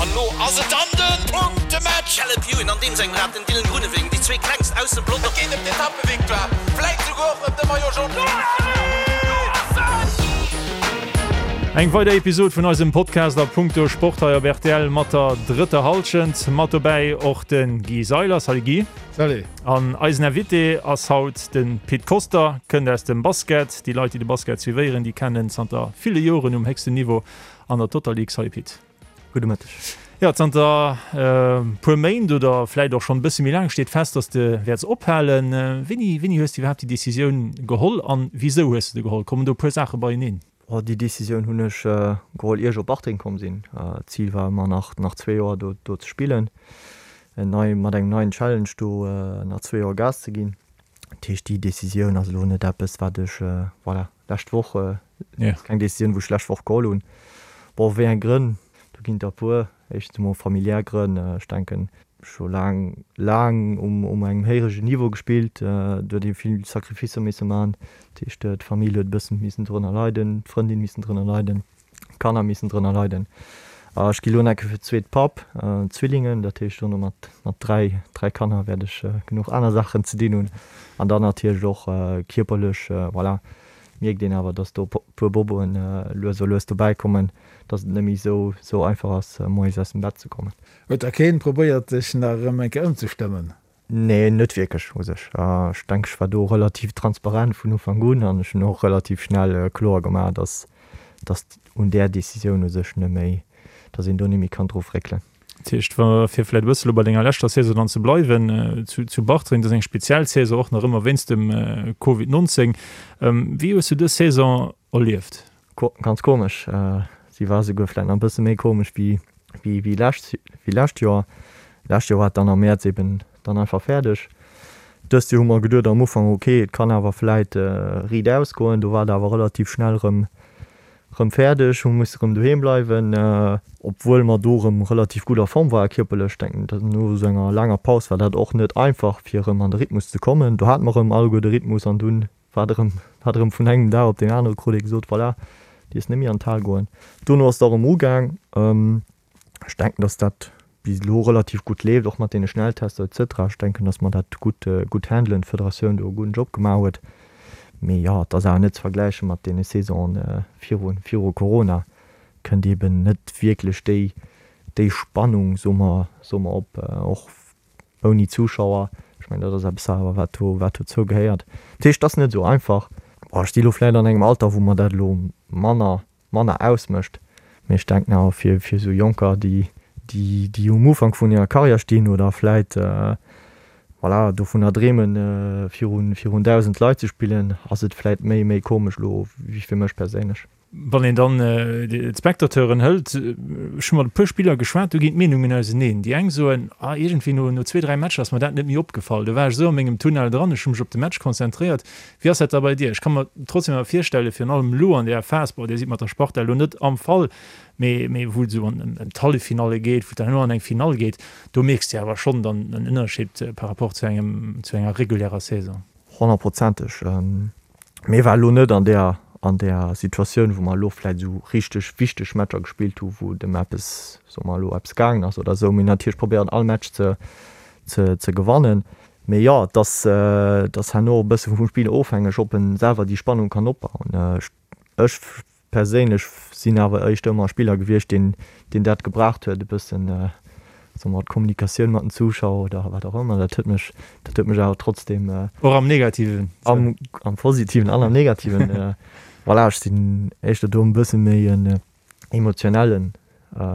An lo ass et dann den Punktematch! Caleb Ewan an deem sengem Rad, den Dylan Groenewegen, déi zwee klengst aus dem Pelotong. Et geet ëm d'Etappevictoire, vläit souguer och ëm de Maillot Jaune. Eng weider Episod vun eisem Podcast a Punkto Sport hei op rtl mat der drëtter Hallschent. Mat dobäi och de Guy Seiler. Salut Guy. Salut. An eisen Invité ass haut de Pit Koster, kënnt aus dem Basket. Déi Leit, déi de Basket suivéieren, déi kennen zanter ville Joren um héchsten Niveau an der Total League. Salut Pit. Gudde Mëtteg. Jo, zanter e puer Méint oder vläit och schonn e bësse méi laang steet fest, dass de wäerts ophalen. Wéini, wéini hues de iwwerhaapt déi Decisioun geholl an wisou hues de se geholl? Kommen do e puer Saache beieneen? Oh, déi Decisioun hunn ech geholl ier ech op Bartreng komm sinn. D'Zil war ëmmer nach, nach zwee Joer do, do ze spillen, en nei, mat engem neien Challenge do nach zwee Joer Gas ze ginn. Dat heescht, déi Decisioun ass elo net eppes, wat ech, voilà, lescht Woch, ass keng Decisioun, wou ech lescht Woch geholl hunn. Bon, wéi eng Grënn? Do ginn et der e puer. Éischtens emol familiär Grënn. Ech denken, ech hu laang, laang um, um engem héiregen Niveau gespillt. Do huet ee vill Sacrificer misse man. Dat heescht, d'Famill huet e bëssen missen drënner leiden, d'Frëndin missen drënner leiden. Kanner missen drënner leiden. Ech gi lo enke fir d'zweet Papp, Zwillingen, dat heescht dono mat mat 3, 3 Kanner wäert ech genuch aner Saachen ze dinn hunn. An dann natierlech och kierperlech, voilà, mierkt een awer, dass do puer Boboen lues a lues dobäi kommen, dass et net méi esou esou einfach ass moies aus dem Bett ze kommen. Huet da keen probéiert dech nach erëm eng Kéier ëmzestëmmen? Nee, net wierklech u sech. Ech denken, ech war do relativ transparent vun Ufank un an ech hunn och relativ schnell kloer gemaach, dass dass un där Decisioun u sech net méi, dass een do net méi kann dru fréckelen. Dat heescht, wa fir vläicht e bësse lo bei denger leschter Saison dann ze bleiwen, zu zu Bartreng, dat ass eng speziell Saison, och nach ëmmer wéinst dem Covid 19. Wéi hues du dës Saison erlieft? Ganz komesch. Si war souguer vläit nach e bësse méi komesch wéi wéi lescht wéi lescht Joer. Lescht Joer war et dann am Mäerz eben dann einfach fäerdeg. Dëst Joer hu mer geduet am Ufank, ok, et kann awer vläit riit ausgoen. Do war et awer relativ schnell erëm erëm fäerdeg, hu musse erëm doheem bleiwen, obwuel mer do erëm relativ gutt a Form ware kierperlech. Denken, no esou enger laanger Paus war dat och net einfach fir erëm an de Rhythmus ze kommen. Do hate mer erëm alleguer de Rhythmus an dunn Wat erëm, wat erëm vun engem Dag op deen anere krut ee gesot, voilà, dierfs net méi an d'Hal goen. Dono ass et och erëm ugaang. Ech denken, datt dat bis elo relativ gutt leeft, och mat deene Schnelltester et cetera. Ech denken, datt mer dat gutt, gutt handelen, d'Federatioun do e gudden Job gemaach huet. Mee jo, et ass awer net ze vergläiche mat deene Saisonen viru, viru Corona. Kënnt eeben net wierklech déi, déi Spannung, soe mer, soe mer op, och Ouni Zuschauer, ech mengen dat ass eppes awer wat do wat dozou gehéiert. Dat heescht, et ass net esou einfach. Bon, ech si lo vläicht an engem Alter wou mer dat elo manner manner ausmécht, mee ech denken awer fir fir esou Jonker déi déi déi um Ufank vun hirer Karriär stinn oder vläicht voilà dovunner dreemen virun virun 1.000 Leit ze spillen, ass et vläicht méi méi komesch elo wéi fir mech perséinlech. Wann een dann d'Spectateuren hëlt, ech hu mat e puer Spiller geschwat, do ginn d'Meenungen auseneen. Déi eng soen, ah iergendwéi no no zwee, dräi Matcher ass mer dat net méi opgefall, do war ech esou a mengem Tunnel dran, ech hu mech op de Match konzentréiert. Wéi ass dat da bei dir? Ech ka mer trotzdem awer virstellen, virun allem elo an där Phas, bon, dir sidd mat der Sparta elo net am Fall, mee mee wou et esou an ëm d'Halleffinalle geet, wou et dann elo an eng Finall geet, do mierks de awer schonn dann en Ënnerscheed par rapport zu engem zu enger regulärer Saison. Honnertprozenteg. Mir ware lo net an där, an där Situatioun, wou mer elo vläicht esou richteg wichteg Matcher gespillt hu wou et ëm eppes, soe mer elo, eppes gaangen ass oder esou. Mir hunn natierlech probéiert all Match ze, ze, ze gewannen. Mee jo, et ass, et ass herno och e bësse vum Spiller ofhängeg, ob en selwer déi Spannung kann opbauen. Ech, ech Perséinlech sinn awer éischter ëmmer e Spiller gewiescht, deen deen dat gebraucht huet, e bëssen, soe mer, d'Kommunikatioun mat den Zuschauer oder wat och ëmmer. Dat huet mech, dat huet mech awer trotzdeem. Och am Negativen? Am, am Positiven an am Negativen. Voilà, ech sinn éischter do e bësse méi en emotionellen,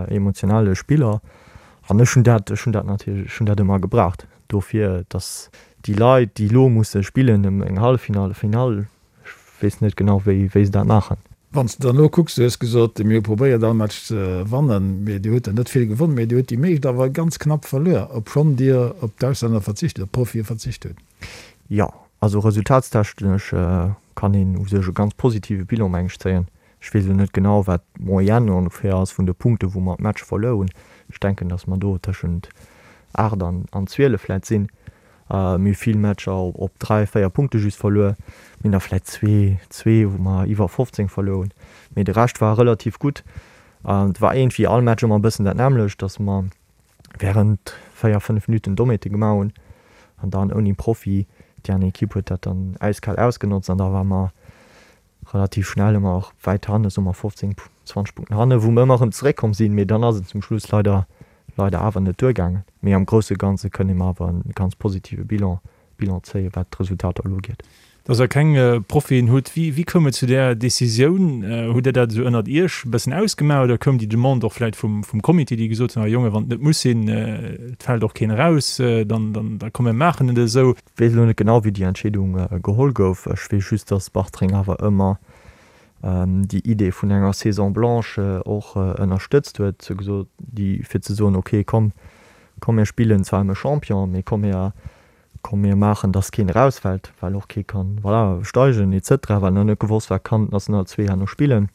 emotionale Spiller an ech hunn dat, ech hunn dat natierlech, ech hunn dat ëmmer gebraucht dofir, datt déi Leit, déi elo musse spillen ëm eng Halleffinall, Finall, Ech weess net genau wéi wéi se dat maachen. Wann s de dann elo kucks, du hues gesot, mir hu probéiert all Match ze wannen, mee dir hutt der net vill gewonnen, mee dir hutt déi meescht awer ganz knapp verluer, obschonn dir op d'Auslänner verzicht, op d'Profie verzicht hutt. Jo, also resultatstechnesch kann een u sech e ganz positive Bilan meng ech zéien. Ech weess elo net genau wat d'Moyenne ongeféier ass vun de Punkte wou mer d'Match verluer hunn. Ech denken, datt mer do tëschent 8 an 12 vläit sinn. Mir hu vill Matcher op 3, 4 Punkte just verluer. Mir hunn der vläit zwee, zwee wou mer iwwer 15 verluer hunn. Mee de Rescht war relativ gutt. Et war iergendwéi all Match ëmmer e bëssen dat nämmlecht, dass mer während 4, 5 Minuten Dommheete gemaach hunn an dann ouni Profi, déi aner Ekipp huet dat dann äiskal ausgenotzt an da ware mer relativ schnell ëmmer och wäit hanne, soe mer 15, 20 Punkten hanne, wou mer ëmmer erëm zeréckkomm sinn, mee dann ass et zum Schluss leider, leider awer net duergaangen. Mee am grousse Ganze kënne mer awer e ganz positive Bilan Bilan zéien, wat d'Resultater elo ugeet. Dass Der keng Profien hutt, wéi, wéi koum et zu där Decisioun? Hutt Der dat esou ënnert Iech e bëssen ausgemaach oder koum déi Demande och vläicht vum, vum Comité, déi gesot hunn, ah Jongen, wann et net muss sinn, et fält och keen eraus, dann, dann, da komm mir maachen et esou? Weess elo net genau, wéi déi Entscheedung geholl gouf. Ech weess just, dass Bartreng awer ëmmer déi Idee vun enger Saison blanche och ënnerstëtzt huet, déi, fir ze soen, okay, komm, komm mir spillen zwar ëm e Champion, mee komm mir, Komm mir maachen, dass keen erausfält, well och kee kann, voilà, steigen et cetera, well nach net gewosst war, kann d'National 2 herno spillen.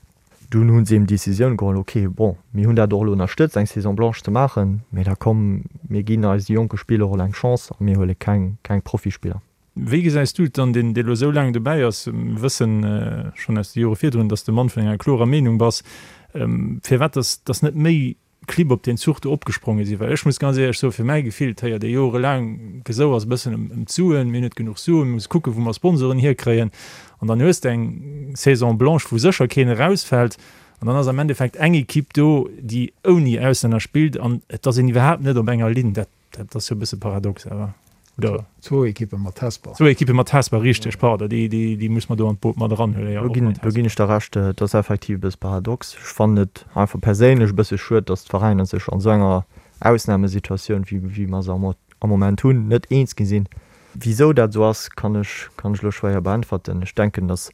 Dunn hu se eben d'Decisioun geholl, ok, bon, mir hunn dat och elo ënnerstëtzt, eng Saison blanche ze maachen, mee da komm, mir ginn eise jonke Spiller och elo eng Chance a mir huele keng, keng Profispiller. Wéi gesäis du et dann, deen, dee elo esou laang dobäi ass? Mir wëssen schonn aus de Jore virdrun, dass de Mann vun enger klorer Meenung bass. Firwat dass, dass net méi Clibb op deen Zuch do opgespronge sinn, well ech muss ganz éierlech soen, fir mäi Gefill, et héiert ee jorelaang Gesouers e bëssen ëm d'Suen, mir hunn net genuch Suen, mir musse kucken, wou mer Sponsoren hierkréien an dann hues de eng Saison blanche, wou sécher keen erausfält an dann ass am Endeffekt eng Equipe do, déi ouni Auslänner spillt an et ass een iwwerhaapt net op enger Linn. Dat Dat ass jo e bësse paradox awer, oder? Zwou Ekippe mat Hesper. Zwou Ekippe mat Hesper, richteg, pardon, déi, déi, déi muss mer do an d'Boot mat eranhuelen, jo, och mat Hesper. Do ginn ech der Recht, et ass effektiv e bësse paradox. Ech fannen et einfach perséinlech e bësse schued, datt d'Veräiner sech an esou enger Ausnamesituatioun, wéi, wéi mer se am, am Moment hunn, net eens gi sinn. Wisou dat esou ass, kann ech, kann ech elo schwéier beäntwerten. Ech denken, datt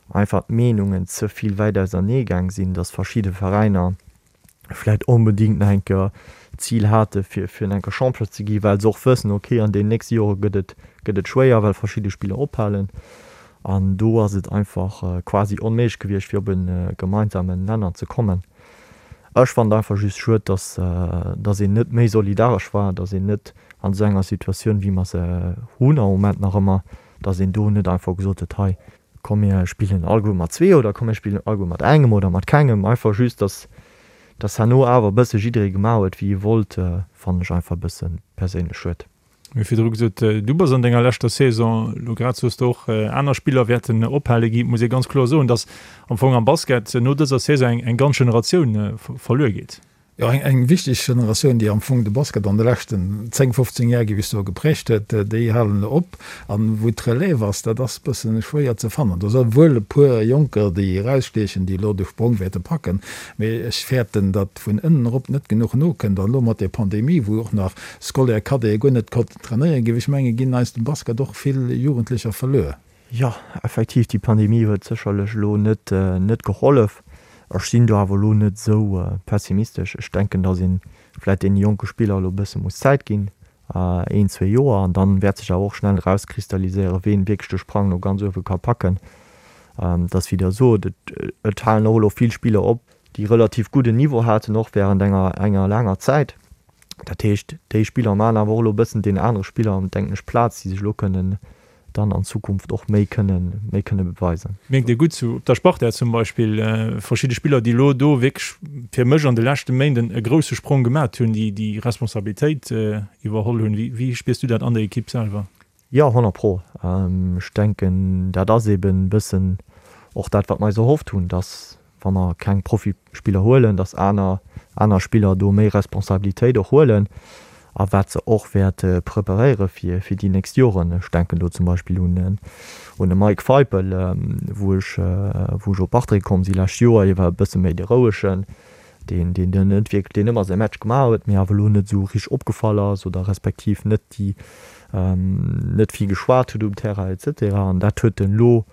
einfach d'Meenungen ze vill wäit ausernee gaang sinn, datt verschidde Veräiner, vläit onbedingt nach eng Kéier d'Zil hate fir fir eng Kéier Champion ze gi, well se och wëssen, ok an deenen nächste Jore gëtt et gëtt et schwéier, well verschidde Spiller ophalen an do ass et einfach quasi onméiglech gewiescht fir op e gemeinsamen Nenner ze kommen. Ech fannen et einfach just schued, datt datt een net méi solidaresch war, datt een net an esou enger Situatioun wéi mer se hunn am Moment nach ëmmer, datt een do net einfach gesot huet, hei Komm mir spillen alleguer mat zwee oder komm mir spillen alleguer mat engem oder mat kengem. Einfach just, dass dass herno awer e bësse jidderee gemaach huet, wéi e wollt, fannen ech einfach e bësse perséinlech schued. Mir hu virdru gesot, du bass an denger leschter Saison, elo grad soos de och, aner Spiller wäerten ophale ginn. Et muss ee ganz kloer soen, dass am Fong am Basket no dëser Saison eng eng ganz Generatioun verluer geet. Jo, eng wichteg Generatioun, déi am Fong de Basket an de leschten 10, 15 Jar, géif ech soen, geprägt huet, déi halen elo op. An wou d'Relève ass, dat ass e bësse schwéier ze fannen. Do si wuel e puer Jonker, déi erausstiechen, déi elo de Sprong wäerte packen, mee ech fäerten, datt vun ënnen erop net genuch nokënnt. An elo mat där Pandemie, wou och nach Scolaire, Cadete guer net konnten trainéieren, géif ech mengen, ginn eis dem Basket och vill Jugendlecher verluer. Jo, effektiv, déi Pandemie huet sécherlech elo net net gehollef. Ech sinn do awer elo net esou pessimistesch. Ech denken, datt ee vläicht deene jonke Spiller elo e bësse muss Zäit ginn, een, zwee Joer, an dann wäert sech awer och schnell erauskristalliséieren, ween wierklech de Sprang no ganz uewe ka packen. Et ass wéi Der sot, et et halen och elo vill Spiller op, déi relativ gudden Niveau haten, och wärend enger enger laanger Zäit. Dat heescht, déi Spiller maachen awer och elo e bëssen deenen anere Spiller, denken ech, Plaz, déi sech elo kënnen dann an Zukunft och méi kënnen, méi kënne beweisen. Mierkt Dir gutt zu op der Sparta zum Beispill verschidde Spiller, déi elo do wierklech fir mech an de leschte Méinden e grousse Sprong gemat hunn, déi déi Responsabilitéit iwwerholl hunn. Wéi wéi spiers du dat an der Ekipp selwer? Jo, 100 pro. Ech denken, dat ass eben e bëssen och dat, wat mer eis erhofft hunn, dass wa mer keng Profispiller huelen, dass aner aner Spiller do méi Responsabilitéit och huelen a wat se och wäerte preparéiere fir fir déi nächst Joren. Ech denken do zum Beispill un en un de Mike Feipel, wou ech wou ech op Bartreng komm si lescht Joer. Hie war e bësse méi de Rouegen, deen deen deen net wierklech deen ëmmer säi Match gemaach huet, mee awer elo net esou richteg opgefall ass oder respektiv net déi net vill geschwat huet um Terrain et cetera. An dat huet en elo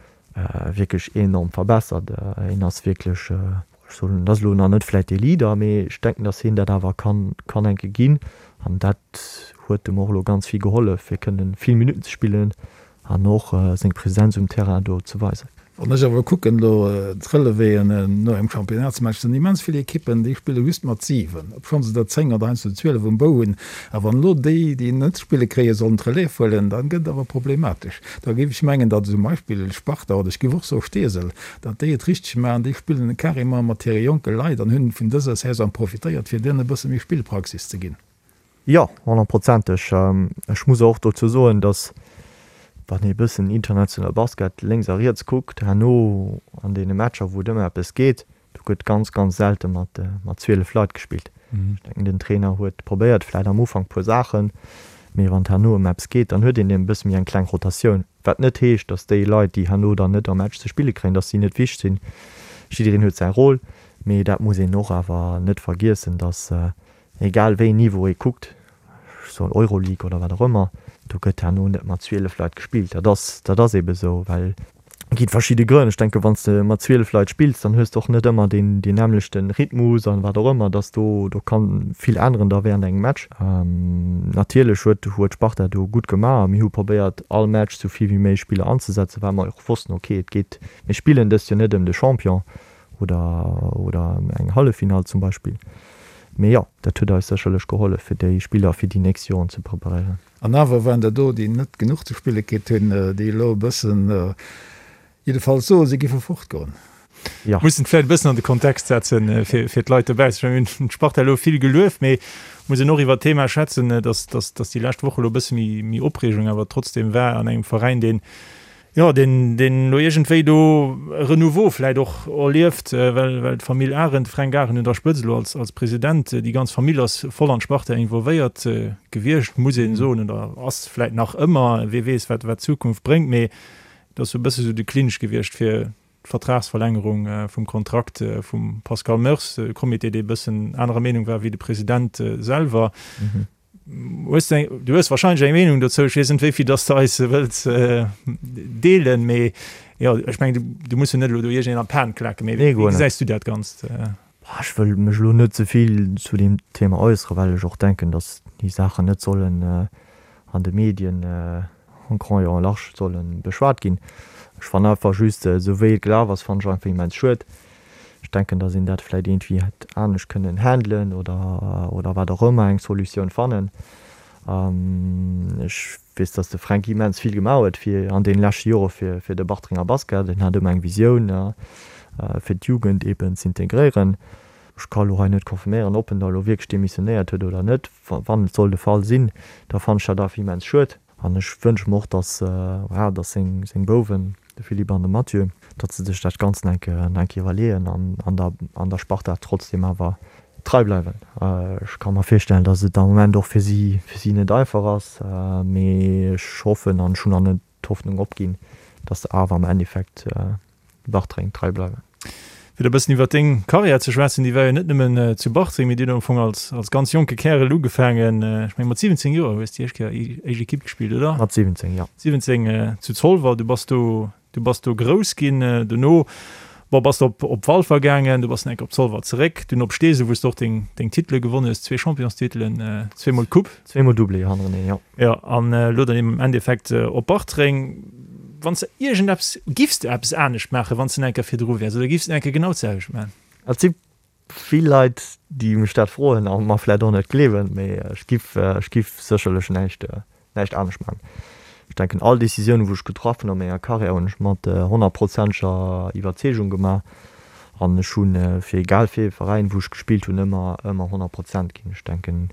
wierklech enorm verbessert. Hien ass wierklech, ech soen, en ass elo nach net vläit dee Leader, mee ech denken, datt hien dat awer kann, kann eng Kéier ginn. An dat huet em och elo ganz vill gehollef, fir kënnen vill Minutten ze spillen an och seng Presenz um Terrain do ze weisen. Wann ech awer kucken elo d'Relevéen no engem Championnatsmatch, sinn immens vill Ekippen, déi spille just mat 7, obschonn se der 10 oder heiansdo 12 um Bou hunn. A wann elo déi, déi net spille kréien, sollen d'Relève huelen, da gëtt et awer problematesch. Da géif ech mengen, datt zum Beispill Sparta oder ech géif och soe Steesel, datt déi et richteg maachen, déi spillen carrément mat hire jonke Leit an hunn vun dëser Saison profitéiert, fir deenen e bësse méi Spillpraxis ze ginn. Jo, honnertprozenteg. Ech muss och dozou soen, datt, wann ee bëssen international Basket lénks a riets kuckt, herno an deene Matcher, wou et ëm eppes geet, do gëtt ganz, ganz selte mat 12 Leit gespillt. Ech denken, den Trainer huet probéiert vläicht am Ufank puer Saachen, mee wann et herno ëm eppes geet, dann huet een e bësse méi eng kleng Rotatioun. Wat net heescht, datt déi Leit, déi herno dann net am Match ze spille kréien, datt si net wichteg sinn. Jiddereen huet säi Rôle, mee dat muss een och awer net vergiessen, datt Egal wéi een Niveau ee kuckt, ech soen Euroleague oder wat och ëmmer, do gëtt herno net mat 12 Leit gespillt. Dat ass, dat ass eebe sou, well et gi verschidde Grënn. Ech denke wann s de mat 12 Leit spills, dann hues de och net ëmmer deen, deen nämmlechte Rhythmus an wat och ëmmer, dass do, do ka vill änneren da während engem Match. Natierlech huet, huet Sparta do gutt gemaach a mir hu probéiert all Match sou vill wéi méiglech Spiller anzesetzen, well mer och wossten, okay, et geet, mir spillen dëst Joer net ëm de Champion oder, oder ëm eng Halleffinall zum Beispill. Mee jo, dat huet eis sécherlech gehollef, fir déi Spiller fir déi nächst Joren ze preparéieren. An awer waren der do, déi net genuch ze spille kritt hunn, déi elo e bëssen, jiddefalls soen, si giffe fortgoen. Jo. Mussen et vläicht e bëssen an de Kontext setzen, fir d'Leit dobaussen. Ech mengen, mir hunn d'Sparta elo vill gelueft, mee muss een och iwwert d'Thema schwätzen, dass, dass, dass déi lescht Woche elo e bësse méi, méi Opreegung awer trotzdem war an engem Veräin, deen, Jo, deen, deen elo iergendwéi do e Renouveau vläit och erlieft, well, well d'Famill Arendt, de Fränk Arendt un der Spëtzt elo als, als President, déi ganz Famill ass voll an d'Sparta involvéiert gewiescht, muss een soen, oder ass vläit nach ëmmer, wee weess, wat, wat d'Zukunft bréngt, mee et ass esou e bësse sou de Clinch gewiescht fir d'Vertragsverlängerung vum Kontrakt vum Pascal Meurs, e Comité, dee e bëssen anerer Meenung war wéi de President selwer. Hues du eng, du hues wahrscheinlech eng Meenung dozou, ech weess net wéi vill dass du eis wëlls deelen, mee jo, ech mengen du, du muss jo net elo do iergendeen an d'Pan klaken, mee wéi gesäis du dat Ganzt? Ech wëll mech elo net ze vill zu deem Thema äusseren, well ech och denken, dass déi Saachen net sollen an de Medien en grand et en large solle beschwat ginn. Ech fannen einfach just, esou wéi et gelaf ass, fannen ech einfach immens schued. Ech denken, datt een dat vläit iergendwéi hätt anescht kënnen handelen oder, oder wat och ëmmer, eng Solutioun fannen. Ech weess, datt de Fränk immens vill gemaach huet fir an deene leschte Jore fir, fir de Bartrenger Basket. En hat ëmmer eng Visioun, fir d'Jugend eeben z'integréieren. Ech ka elo hei net confirméieren, ob en da elo wierklech demissionéiert huet oder net. Wann et soll de Fall sinn, da fannen ech dat awer immens schued. An ech wënsche mer och, dass, voilà, dass seng, seng Bouwen, de Philippe an de Mathieu, datt se sech dat Ganzt nach eng Kéier, nach eng Kéier iwwerleeën an an der, an der Sparta trotzdem awer trei bleiwen. Ech ka mer virstellen, dass et am Moment och fir si, fir si net einfach ass, mee ech hoffen an ech hunn nach net d'Hoffnung opginn, dass se awer am Endeffekt Bartreng trei bleiwen. Fir e bëssen iwwer deng Karriär ze schwätzen, déi war jo net nëmmen zu Bartreng, mee dir hutt am Fong als, als ganz jonke Kärel ugefaangen. Ech meng mat 17 Joer hues de déi éischt Kéier éischt Ekipp gespillt, oder? Mat 17, jo. 17 zu Zolwer, du bass do, du bass do grouss ginn. Dono, bon, bass de op, op Walfer gaangen, du bass nach eng Kéier op Zolwer zeréck, dunn op Steesel, wou s de och deng, deng Titele gewonnen hues, zwee Championstitelen, zweemol d'Coupe. Zweemol Doublé hannereneen, jo. Jo, an elo dann eben am Endeffekt op Bartreng. Wann s de iergendeppes, giffs de eppes anescht maachen, wann s de nach eng Kéier virdru wäers, oder giffs de nach eng Kéier genau d'selwecht maachen? Et si vill Leit, déi mech dat froen a mer vläicht och net gleewen, mee ech giff, ech giff sécherlech näischt, näischt anescht maachen. Ech denken, all Decisioun, wou ech getraff hunn a menger Karriär, hunn ech mat honnertprozenteger Iwwerzeegung gemaach an ech hu fir egal fir ee Veräin, wou ech gespillt hunn, ëmmer, ëmmer 100 Prozent ginn. Ech denken,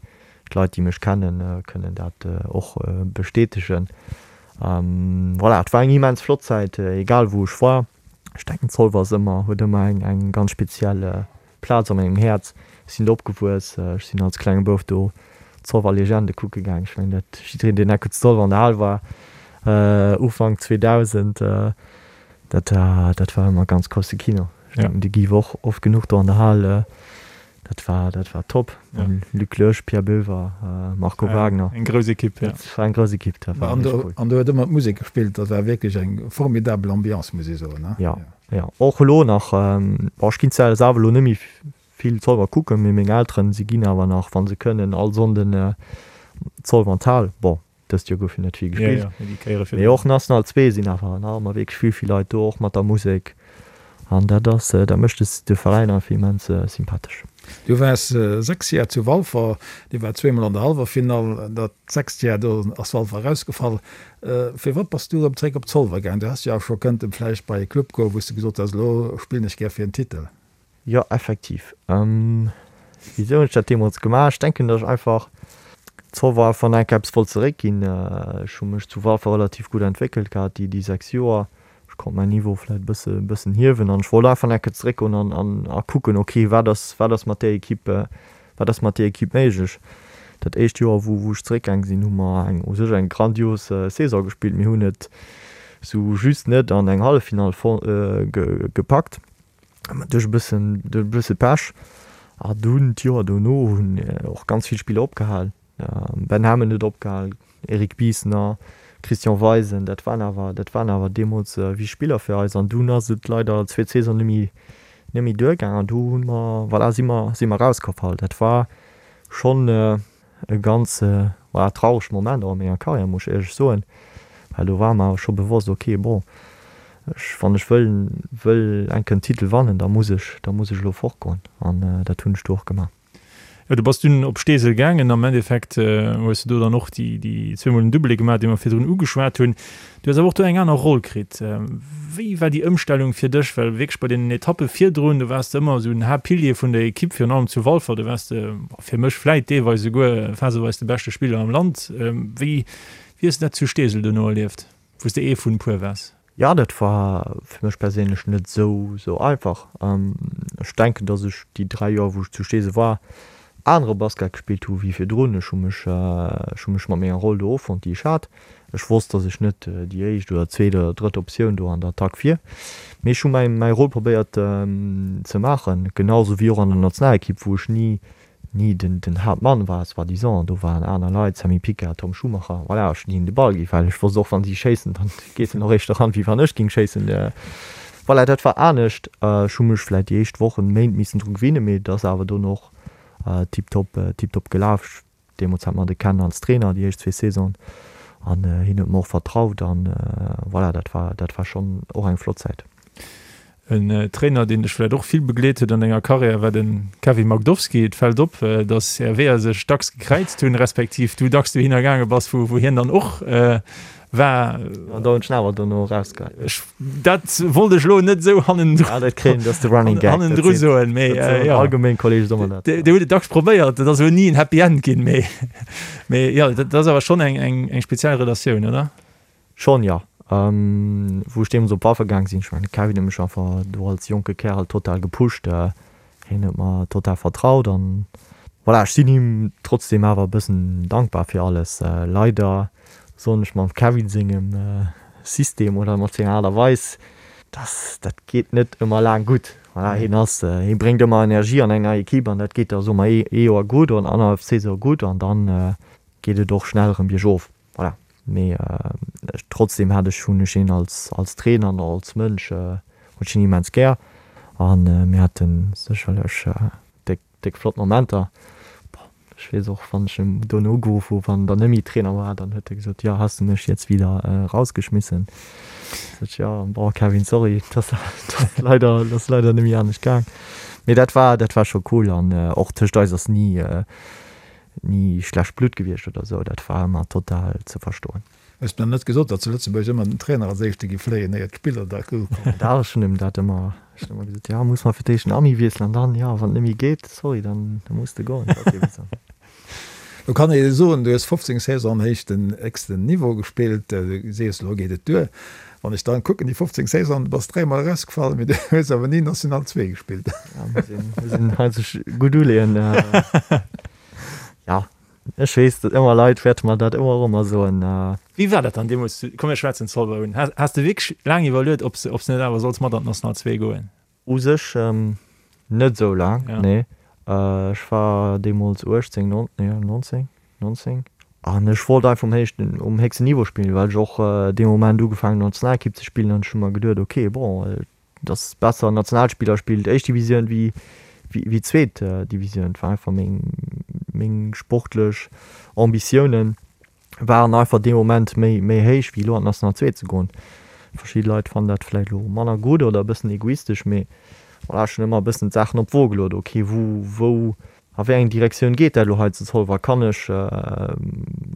D'Leit, déi mech kennen, kënnen dat och bestätegen. Voilà, et war eng immens flott Zäit, egal wou ech war. Ech denken, Zolwer ass ëmmer, huet ëmmer eng, eng ganz speziell Plaz a mengem Häerz. Ech sinn do opgewuess, ech sinn als klenge Bouf do d'Zolwer Legende kucke gaang. Ech mengen, dat jiddereen, deen enke zu Zolwer an der Hal war, Ufank 2000, dat war, dat war ëmmer ganz grousse Kino. Ech denken, de Guy war och oft genuch do an der Hal. Dat war, dat war top. Ja. Luc Loesch, Pierre Boever, Marco Wagner. Eng grouss Ekipp, ja. Dat war eng grouss Ekipp, dat war An do, cool. An do huet ëmmer d'Musek gespillt, dat war wierklech eng formidabel Ambiance, muss ee soen, ne? Ja, ja. Och elo nach, bon, ech ginn zwar selwer elo net méi vill Zolwer kucken, mee meng Elteren, si ginn awer nach, wa se kënnen, all Sonnden Zolwer an d'Hal. Bon. Dëst Joer gouf jo net vill gespillt. Mee och National 2 sinn awer nach ëmmer wierklech vill, vill Leit do, och mat der Musek. An dat ass, dat mécht de Veräin einfach immens sympathesch. Du waars 6 Jar zu Walfer, Dir waart zweemol an der Hallwerfinall, dat sechst Jar do ass Walfer erausgefall. Firwat bass du erëm zréck op Zolwer gaang? Du häss jo awer scho kënnten vläicht bei e Club goen, wou s de gesot häss, elo spillen ech gär fir en Titel. Jo, effektiv. Wisou hunn ech dat deemools gemaach? Ech denken, datt ech einfach Zolwer einfach nach eng Kéier eppes wollt zeréckginn. Ech hu mech zu Walfer relativ gutt entwéckelt gehat déi 6 Joer. Ech konnt mäin Niveau vläit e bësse bëssen hiewen an ech wollt einfach nach eng Kéier zeréckgoen an an a kucken, ok, wat ass wat ass mat där Equipe wat ass mat där Equipe méiglech. Dat éischt Joer, wou wou ech zeréckgaang sinn, hu mer eng u sech eng grandios Saison gespillt. Mir hunn et sou just net an eng Halleffinall gepackt. Duerch e bëssen, duerch e bësse Pech. A dunn d'Joer dono hunn och ganz vill Spiller opgehal. Ben Hammond huet opgehal, Eric Biesner, Christian Weisen, dat waren awer, dat waren awer deemools wichteg Spiller fir eis. An dunn ass et leider zweet Saison net méi, net méi duergaang an du hu mer, voilà, si mer, si mer erausgefall. Dat war schonn E ganz, voilà, traurege Moment och a menger Karriär, muss ech éierlech soen, well do war mer awer scho bewosst, ok, bon, ech, wann ech wëll, wëll eng Kéier en Titel wannen, da muss ech, da muss ech elo fortgoen an dat hunn ech du och gemaach. Jo, du bass dunn op Steesel gaangen. Am Endeffekt hues de do dann och déi, déi zweemol den Doublé gemaach, dee mer virdrun ugeschwat hunn. Du hues awer och do eng aner Roll kritt. Wéi war déi Ëmstellung fir dech? Well wierklech bei deenen Etappe virdrun, do waars de ëmmer esou den Haaptpilier vun der Ekipp, virun allem zu Walfer, do waars de fir mech vläit deelweis esouguer phaseweis de beschte Spiller am Land. Wéi hues de dat zu Steesel duerno erlieft, wou s de ee vun e puer waars? Jo, dat war fir mech perséinlech net esou esou einfach. Ech denken, datt ech déi 3 Joer, wou ech zu Steesel war, anere Basket gespillt hu wéi virdrun. Ech hu mech ech hu mech mat menger Roll do offonnt, déi ech hat. Ech wosst, datt ech net déi éischt oder zweet oder drëtt Optioun do an der Attack wier, mee ech hu mäi mäi Rôle probéiert ze maachen, genau sou wéi och an der Nationalekipp, wou ech ni ni den den Haaptmann war, soi-disant, do waren aner Leit, Sammy Picard, Tom Schumacher, voilà, ech hunn hinnen de Ball gi well ech wosst och, wann si schéissen, dann geet en och éischter ran, wéi wann ech géing schéissen. Voilà, dat war anescht. Ech hu mech vläit déi éischt Wochen, Méint missen dru gewinnen, mee et ass awer dono och tiptop, tiptop gelaf. Deemools hat mer de Ken als Trainer, déi éischt zwee Saisonen, an hien huet mer och vertraut an voilà, dat war, dat war schonn och eng flott Zäit. En Trainer, deen dech vläicht och vill begleet huet an denger Karriär, war de Kevin Magdowski. Et fält op, datt är Weeër sech dacks gekräizt hunn, respektiv du dacks dohinner gaange bass, wou hien dann och war. An da hunn ech en awer dono erausgeheit. Ech, dat wollt ech elo net esou hannendru Ah, dat kréien, dat ass de Running Gag. hannendru soen, mee jo. Allgemeng Kolleege soe mer dat. Dir hutt et dacks probéiert, et ass elo ni en Happy End ginn, mee, mee jo, dat ass awer schonn eng, eng, eng speziell Relatioun, oder? Schon, jo. Wou ech deemools op Walfer gaang sinn, ech mengen de Kevin huet mech einfach do als jonke Kärel total gepusht. Hien huet mer total vertraut an voilà, ech sinn him trotzdem awer e bëssen dankbar fir alles. Leider soen ech mam Kevin sengem System oder mat senger Aart a Weis, dass dat geet net ëmmer laang gutt. Voilà, hien ass, hie bréngt ëmmer Energie an eng nei Equipe an dat geet da soe mer ee Joer gutt oder annerhallef Saison gutt an dann geet et och schnell erëm biergof. Voilà, mee trotzdem hat ech, hunn ech hien als, als Trainer an och als Mënsch hunn ech hien immens gär an mir hate sécherlech déck, déck flott Momenter. Bon, ech weess och, wann ech em dono ugeruff hu wann en dann net méi Trainer war, dann huet e gesot, jo, has du mech jetzt wieder rausgeschmissen? Sot ech, jo, bon Kevin, sorry, dat ass leider, dat ass leider net méi anescht gaang. Mee dat war, dat war scho cool an och tëscht eis ass ni, Ni schlecht Blutt gewiescht oder sou, dat war ëmmer total ze verstoen. Hues mir net gesot, datt zu Lëtzebuerg ëmmer den Trainer als éischte gi fléien, éier d'Spiller da kommen? Dach, ech hunn him dat ëmmer, ech hunn ëmmer gesot, jo, muss mer fir d'éischt den Ami wiesselen an dann, jo, wann et net méi geet, sorry, dann muss de goen. Dat ass eben sou. Lo kann ee soen, du hues 15 Saison am héichten, héchsten Niveau gespillt, du sees, elo geet et duer. Wann ech dann kucken, déi 15 Saisonen, du bass dräimol erausgefall, mee du hues awer ni National 2 gespillt. Ja, muss een, muss een hei sech gutt uleeën. Ja, ech weess, datt ëmmer Leit wäerte mer dat ëmmer erëm soen. Wéi war dat dann deemools? Komm mir schwätzen Zolwer un. Has, has de wierklech laang iwwerluet, ob s, ob s net awer solls mat an d'National 2 goen? U sech net esou laang, nee. Ech war deemools 18, nee 19, 19 an ech wollt einfach um héichten, um héchsten Niveau spillen, well ech och dee Moment ugefaangen hunn Nationalekipp ze spillen an ech hu mer geduet, ok, bon, et ass besser en Nationalspiller spillt éischt Divisioun wéi wéi zweet Divisioun. Et war einfach meng meng sportlech Ambitiounen. Waren einfach dee Moment méi méi héich wéi elo an d'National 2 ze goen. Verschidde Leit fannen dat vläicht elo manner gutt oder e bëssen egoistesch, mee voilà, ech hunn ëmmer e bëssen d'Saachen op d'Wo geluet, ok wou wou a wéi eng Direktioun geet dat elo hei zu Zolwer? Kann ech,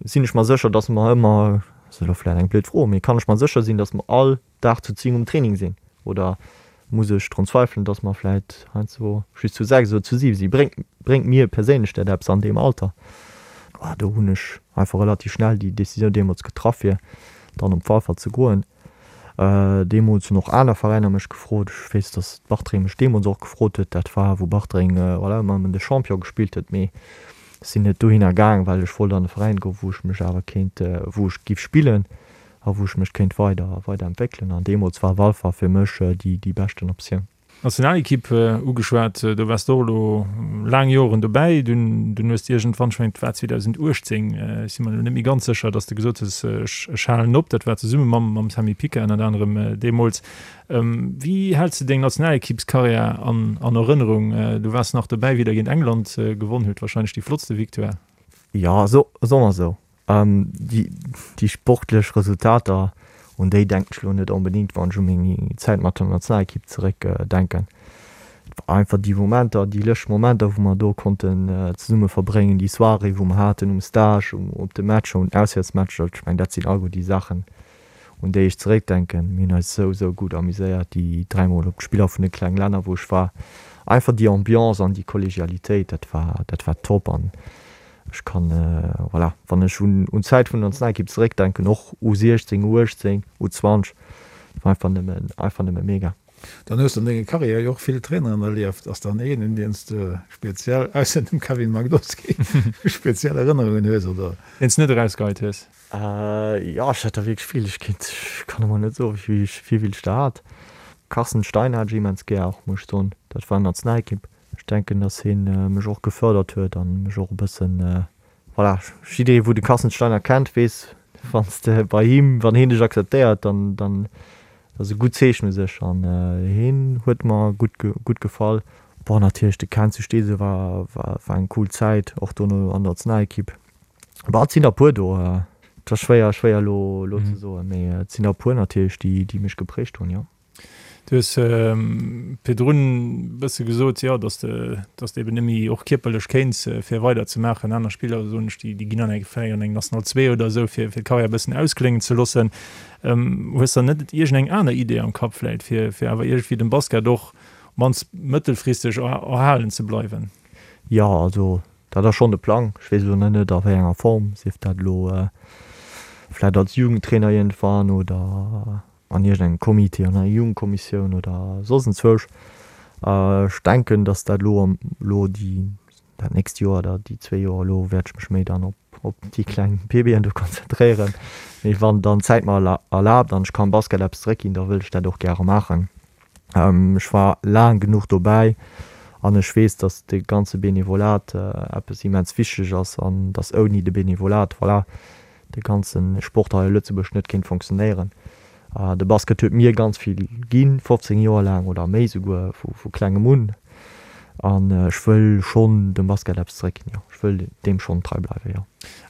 sinn ech mer sécher, datt mer ëmmer, ass elo vläicht eng blöd Fro, mee kann ech mer sécher sinn, datt mer all Dag zu 10 um Training sinn? Oder muss ech drun zweifelen, dass mer vläit heiansdo just zu 6 oder zu 7 sinn? Bréngt, bréngt mir perséinlech dat eppes an deem Alter? Ah, do hunn ech einfach relativ schnell déi Decisioun deemools getraff, fir dann op Walfer ze goen. Deemools hunn och aner Veräiner mech gefrot. Ech weess, dass Bartreng mech deemools och gefrot huet. Dat war, wou Bartreng, voilà, ëmmer ëm de Champion gespillt huet. Mee ech sinn net dohinner gaang, well ech wollt an e Veräin goen, wou ech mech awer kéint, wou ech giff spillen. a wou ech mech kéint weider weider entwéckelen an deemools war Walfer fir mech déi déi beschten Optioun. Nationalekipp ugeschwat, do waars de och elo laang Joren dobäi, dunn dunn hues de iergendwann, ech mengen et war 2018, ech si mer elo net méi ganz sécher, datt s de gesot hues, ech ech halen op, dat war zesumme mam mam Sammy Pica ënnert anerem deemools. Wéi häls de deng Nationalekippskarriär an an Erënnerung? Du waars nach dobäi wéi der géint England gewonn hutt, wahrscheinlech déi flottste Victoire. Jo, so soe mer esou. Déi sportlech Resultater, un déi denken ech elo net onbedéngt, wann ech u meng Zäit mat der Nationalekipp zeréck denken. Et war einfach déi Momenter, déi lëscht Momenter, wou mer do konnten zesumme verbréngen, déi Soirée, wou mer haten um Stage, op de Matcher, un Auswäertsmatcher. Ech mengen, dat sinn alleguer déi Saachen, un déi ech zeréckdenken. Mir hunn eis esou, esou gutt amuséiert déi dräimol op d'Spiller vun de kleng Länner, wou ech war. Einfach déi Ambiance an déi Kollegialitéit, dat war, dat war top. An Ech kann, voilà, wann ech un d'Zäit vun der Nationalekipp zeréckdenken, och U16, U18, U20, et war einfach nëmmen, einfach nëmme mega. Dann hues de an denger Karriär jo och vill Traineren erlieft. Ass dann een, un deen s de speziell, ausser dem Kevin Magdowski, speziell Erënnerungen hues, oder? Deen s de net erausgeheit hues? Jo, ech hat der wierklech vill. Ech kéint, ech kann emol net soen, wéi vill ech der hat. Carsten Stein hat ech immens gär och, muss ech soen. Dat war Nationalekipp. Ech denken, dass hien mech och gefördert huet an mech och e bëssen, voilà, jidderee wou de Carsten Steiner kennt, weess, wann s de bei him, wann hien dech akzeptéiert, dann, dann ass e gutt Zeechen u sech an hien huet mer gutt, gutt gefall. Bon, natierlech de Ken zu Steesel war, war, war eng cool Zäit, och dono an der Nationalekipp. Bon, et sinn der e puer do, et ass schwéier, schwéier elo, elo ze soen, mee et sinn der e puer natierlech, déi, déi mech geprägt hunn, jo. Du hues virdrun e bësse gesot, jo, datt de, datt de eben net méi och kierperlech kéints, fir weider ze maachen. Aner Spiller, soen ech, déi, déi ginn an eng, vläicht an eng National 2 oder esou, fir, fir d'Karriär e bëssen auskléngen ze loossen. Hues der net iergendeng aner Idee am Kapp vläicht, fir, fir awer iergendwéi dem Basket och op mannst mëttelfristeg erhalen ze bleiwen? Jo, also dat ass schonn de Plang. Ech weess elo nach net a wéi enger Form, sief dat elo vläicht als Jugendtrainer iergendwann oder an iergendengem Comité, an enger Jugendkommissioun oder soss enzwousch. Ech denken, datt dat elo am, elo déi, dat nächst Joer oder déi zwee Joer elo wäert ech mech méi dann op, op déi kleng Baby'en do konzentréieren. Mee wann dann d'Zäit mer erlaabt an ech kann Basket eppes zeréckginn, da wëll ech dat och gäre maachen. Ech war laang genuch dobäi an ech weess, datt de ganze Benevolat eppes immens wichteg ass an datt ouni de Benevolat, voilà, de ganze Sport hei a Lëtzebuerg net kéint fonctionnéieren. De Basket huet mir ganz vill ginn, 15 Joer laang oder méi souguer, vu klengem un. An ech wëll schonn dem Basket eppes zeréckginn, jo. Ech wëll deem schonn trei bleiwen, jo.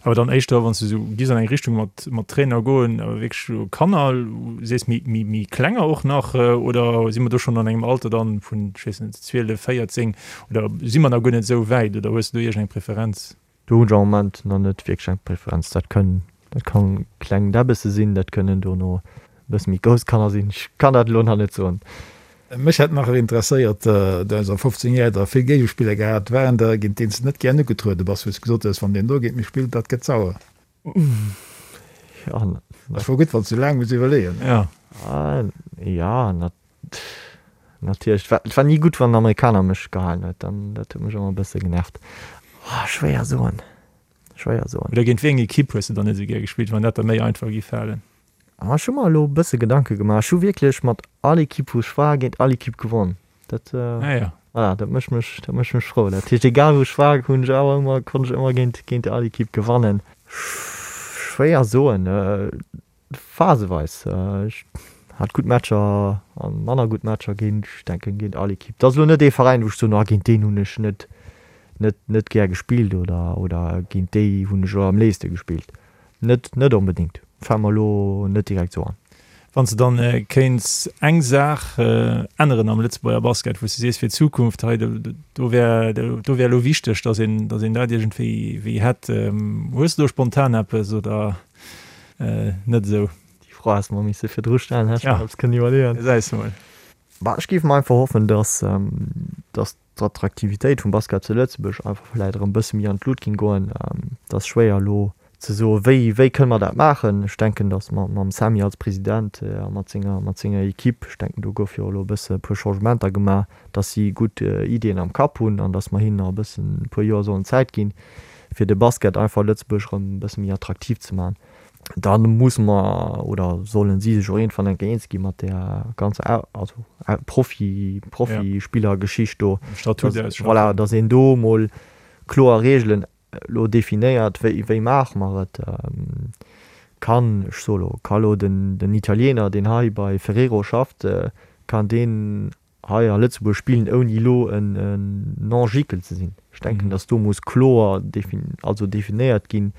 Awer dann éischter, wann s du esou giss an eng Richtung mat mat Trainer goen, awer wierklech Kanner, sees méi méi méi klenger och nach, oder si mer do schonn an engem Alter dann vun, ech weess net, 12, 14, oder si mer nach guer net esou wäit, oder hues du do iergendeng Preferenz? Do hunn ech am Moment nach net wierklech eng Preferenz. Dat kënn, dat kann kleng Däbbesse sinn, dat kënnen dono e bësse méi grouss Kanner sinn. Ech kann dat elo nach net soen. Mech hätt nach interesséiert, du hues a 15 Joer der vill Géigespiller gehat, waren der géint deen s de net gären ugetruede bass, wou s gesot hues, wann deen do géint mech spillt, dat gëtt sauer? Jo. Ass wuel gutt, wann s du laang muss iwwerleeën. Jo. Jo, Natierlech, et war ni gutt wann en Amerikaner mech gehalen huet, dann dat huet mech ëmmer e bësse genervt. Oh, schwéier soen, schwéier soen. Oder géint wéi eng Ekipp hues de dann net esou gär gespillt, wann dat der méi einfach gi falen? Ah, ech hu mer elo e bësse Gedanke gemaach. Ech hu wierklech mat all Ekipp wou ech war, géint all Ekipp gewonn. Dat, ah, ja. voilà, dat mécht mech, dat mécht mech frou. Dat heescht, egal wou ech war, hunn ech awer ëmmer, konnt ech ëmmer géint, géint all Ekipp gewannen. Schwéier soen. Phaseweis. Ech hat gutt Matcher a manner gutt Matcher géint, ech denken, géint all Ekipp. Et ass elo net ee Veräin, wou ech soen, oh géint deen hunn ech net, net, net gär gespillt oder, oder géint déi hunn ech elo am léifste gespillt. Net, net onbedéngt. Fält mer elo net direkt sou an. Wann s de dann kéints eng Saach änneren am Lëtzebuerger Basket, wou s de sees fir d'Zukunft, hei do wär, do wär elo wichteg, datt een, datt een dat iergendwéi wéi hätt. Hues de do spontan eppes oder net esou? Déi Fro häss de mer misse virdru stellen, hätt ech mer eppes kënnen iwwerleeën. Gesäis de mol. Bah, ech géif mer einfach hoffen, datt, datt d'Attraktivitéit vum Basket zu Lëtzebuerg einfach vläit erëm e bësse méi an d'Lut géing goen. Et ass schwéier elo ze soen, wéi, wéi kënne mer dat maachen. Ech denken, datt mer mam Sammy als President a mat senger, mat senger Equipe, ech denken do gouf jo elo e bësse e puer Changementer gemaach, datt si gutt Ideeën am Kapp hunn an datt mer hinnen nach e bëssen e puer Joer sollen Zäit ginn, fir de Basket einfach a Lëtzebuerg erëm e bësse méi attraktiv ze maachen. Da musse mer oder sollen si sech och iergendwann eng Kéier eens gi mat där ganzer also Profi, Profispillergeschicht do. Statut ausschaffen. Voilà, datt een do emol kloer Reegelen elo definéiert, wéi, wéi maache mer et. Kann, ech soe lo, ka lo den, den Italiener, deen hei bei Ferrero schafft, kann deen hei a Lëtzebuerg spillen ouni elo en Non-Gickel ze sinn. Ech denken, datt do muss kloer also definéiert ginn,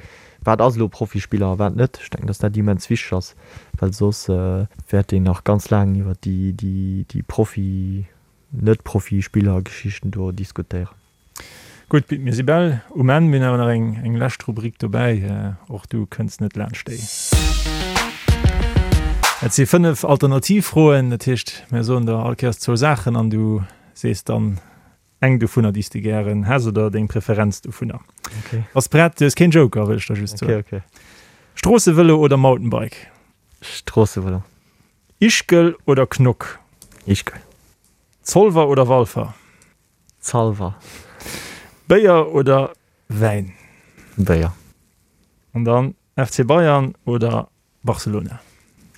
wat ass elo Profispiller a wat net. Ech denken, datt dat immens wichteg ass, well soss wäert een nach ganz laang iwwer déi Profi-, Net-Profispiller-Geschichten do diskutéieren. Gutt, Pit, mir si bal um Enn. Mir hunn awer nach eng, eng lescht Rubrik dobäi. Och du kënns net laanscht déi. Et si 5 Alternativfroen. Dat heescht, mir soen der all Kéiers zwou Saachen an du sees dann eng dovunner, déi s de gären häss oder deng Preferenz dovunner. Okay. Bass prett? Du hues keen Joker, wëll ech der just soen. Okay, okay. Stroossevëlo oder Mountainbike? Stroossevëlo. Ischgl oder Knock? Ischgl. Zolwer oder Walfer? Zalver. Béier oder Wäin? Béier. An dann FC Bayern oder Barcelona?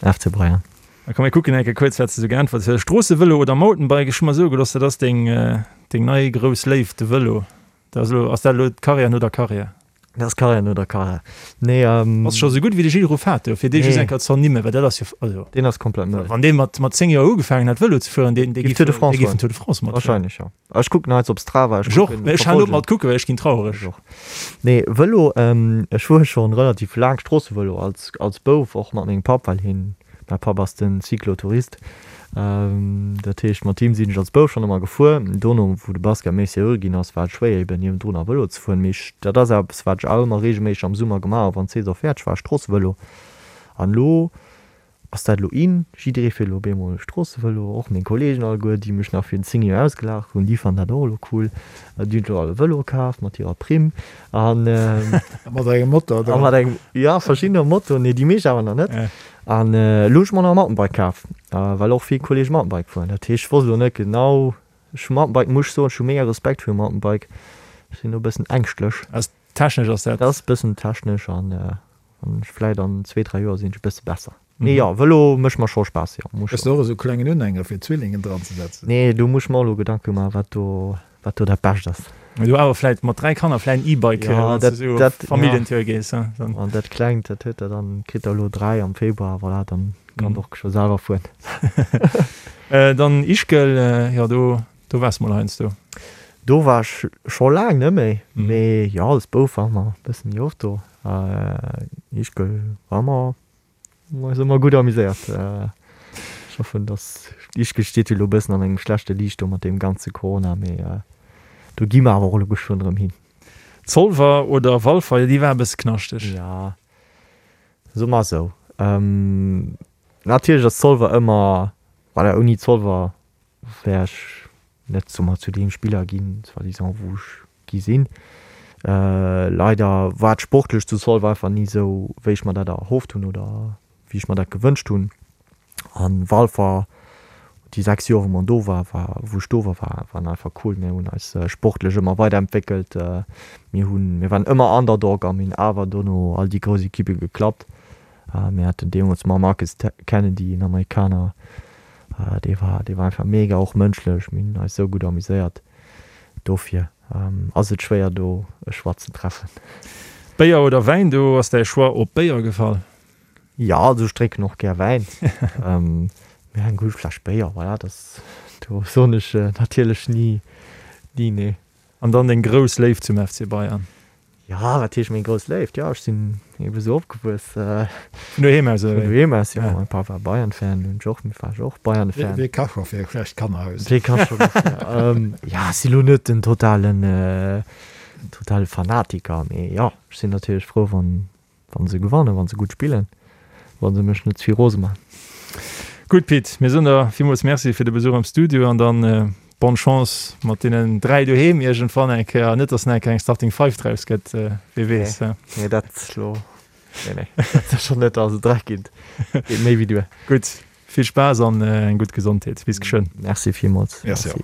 FC Bayern. Da komm mir kucken eng Kéier kuerz wat s de sou geäntwert hues. Stroossevëlo oder Mountainbike? Ech hu mer soe gelooss, dat ass deng deng nei grouss Léift, de Vëlo. Dat ass elo, ass dat elo d'Karriär no der Karriär? Dat ass Karriär no der Karriär. Nee, ähm. Ass scho sou gutt wéi de Gilles Ruffato, fir dee just eng Kéier ze ernimmen, well dat ass jo, also. Deen ass komplett mëll. Wann dee mat, mat 10 Joer ugefaangen hätt Vëlo ze fueren, deen, dee Giff Tour de France dee giff den Tour de France matfueren. Wahrscheinlech, jo. Ech kucken heiansdo op Strava, ech kucken, Ech och, ech halen op mat kucken, well ech ginn traureg. Ech och. Nee, Vëlo, ech fuere schonn relativ laang Stroossevëlo, als, als Bouf, och mat mengem Papp, well hien, mäi Papp ass den Cyclotourist. Dat heescht, mat him sinn ech als Bouf schonn ëmmer gefuer. Dono, wou de Basket méi seriö ginn ass, war et schwéier eben niewendrun nach Vëlo ze fueren. Mee ech, dat ass eppes, wat ech awer ëmmer reegelméisseg am Summer gemaach hu wann d'Saison fäerdeg war, Stroossevëlo. An elo ass dat elo in, jidderee fiert elo op eemol Stroossevëlo, och meng Kolleegen alleguer, déi mech nach virun 10 Joer ausgelaacht hunn, déi fannen dat och elo cool. Déi hunn elo all e Vëlo kaf mat hirer Primm an. A mat engem Motor dran. A mat engem, jo, verschiddene Motoren, nee, déi meescht awer nach net. An elo hunn ech mer nach e Mountainbike kaf, well och vill Kollege Mountainbike fueren. Dat heescht, ech wosst elo net genau, ech hu Mountainbike, muss ech soen, ech hu mega Respekt virum Mountainbike, ech sinn do e bëssen ängschtlech. Ass technesch ass dat? Dat ass e bëssen technesch an ech vläit an zwee, dräi Joer sinn ech e bësse besser. Mee jo, Vëlo mécht mer scho Spaass, jo, muss ech Hues de och esou klengen Unhänger fir Zwillingen dran ze setzen? Nee, do muss ech mer och elo Gedanke maachen, wat do Wat do dat Bescht ass. Mee du awer vläit mat 3 Kanner vläit en E-Bike, Ja, wann s dat, du sou op dat, ja. Familljentour gees, he, dann. An dat Klengt, dat huet der dann, kritt der elo 3 am Februar, voilà, dann kann och scho selwer fueren. Dann Ischgl, jo, do, do waars mol heiansdo. Do war ech scho laang net méi, mee jo, als Bouf ware mer e bësse méi oft do. Ischgl war mer Mer eis ëmmer gutt amuséiert. Ech hoffen, dass, Ischgl steet jo elo e bëssen an engem schlechte Liicht do mat deem ganze Corona, mee do gi mer awer och elo geschwënn erëm hin. Zolwer oder Walfer, jo déi war e bësse knaschteg. Ja, soe mer esou. Natierlech ass Zolwer ëmmer, voilà, ouni Zolwer wär ech net soe mer zu deem Spiller ginn, soi-disant, wou ech gi sinn. Leider war et sportlech zu Zolwer einfach ni esou, wéi ech mer dat erhofft hunn oder wéi ech mer dat gewënscht hunn. An Walfer, déi 6 Joer wou mer do war, war wou ech do war, war waren einfach cool. Mir hunn eis sportlech ëmmer weiderentwéckelt. Mir hunn, mir waren ëmmer Underdog a mir hunn awer dono all déi grouss Ekippe geklappt. Mir haten deemools mam Marcus Kennedy, en Amerikaner, dee war, dee war einfach mega, och mënschlech. Mir hunn eis esou gutt amuséiert. Dofir ass et schwéier do e Choix ze treffen. Béier oder Wäin, do ass däi Choix op Béier gefall? Jo, also ech drénken och gär Wäin, mee eng gutt Fläsch Béier, voilà, dat, do soen ech natierlech ni ni nee. An dann deng grouss Léift zum FC Bayern? Jo, wat heescht meng grouss Léift? Jo, ech sinn ebe sou opgewuess. Vun doheem aus, oder wéi? Vun doheem aus, jo. Mäi Papp war Bayern-Fan, hunn ech och, war ech och Bayern-Fan. Wee ka scho fir e schlecht Kannerhaus? Wee ka scho dofir? Jo, ech si lo net den totalen, totale Fanatiker, mee jo, ech sinn natierlech frou, wann, Wann se gewannen, wann se gutt spillen, wann se mech net ze vill rose man. Gutt Pit, mir soen der villmools Merci fir de Besuch am Studio an dann bonne Chance mat deenen 3 doheem iergendwann eng Kéier, net dass nach eng Kéier eng Starting Five draus gëtt, wee weess. Nee, dat lo, nee, nee, dat sécher net, also 3 geet, geet méi wéi duer. Gutt, vill Spaass an eng gutt Gesondheet. Bis geschwënn. Merci villmools. Merci och.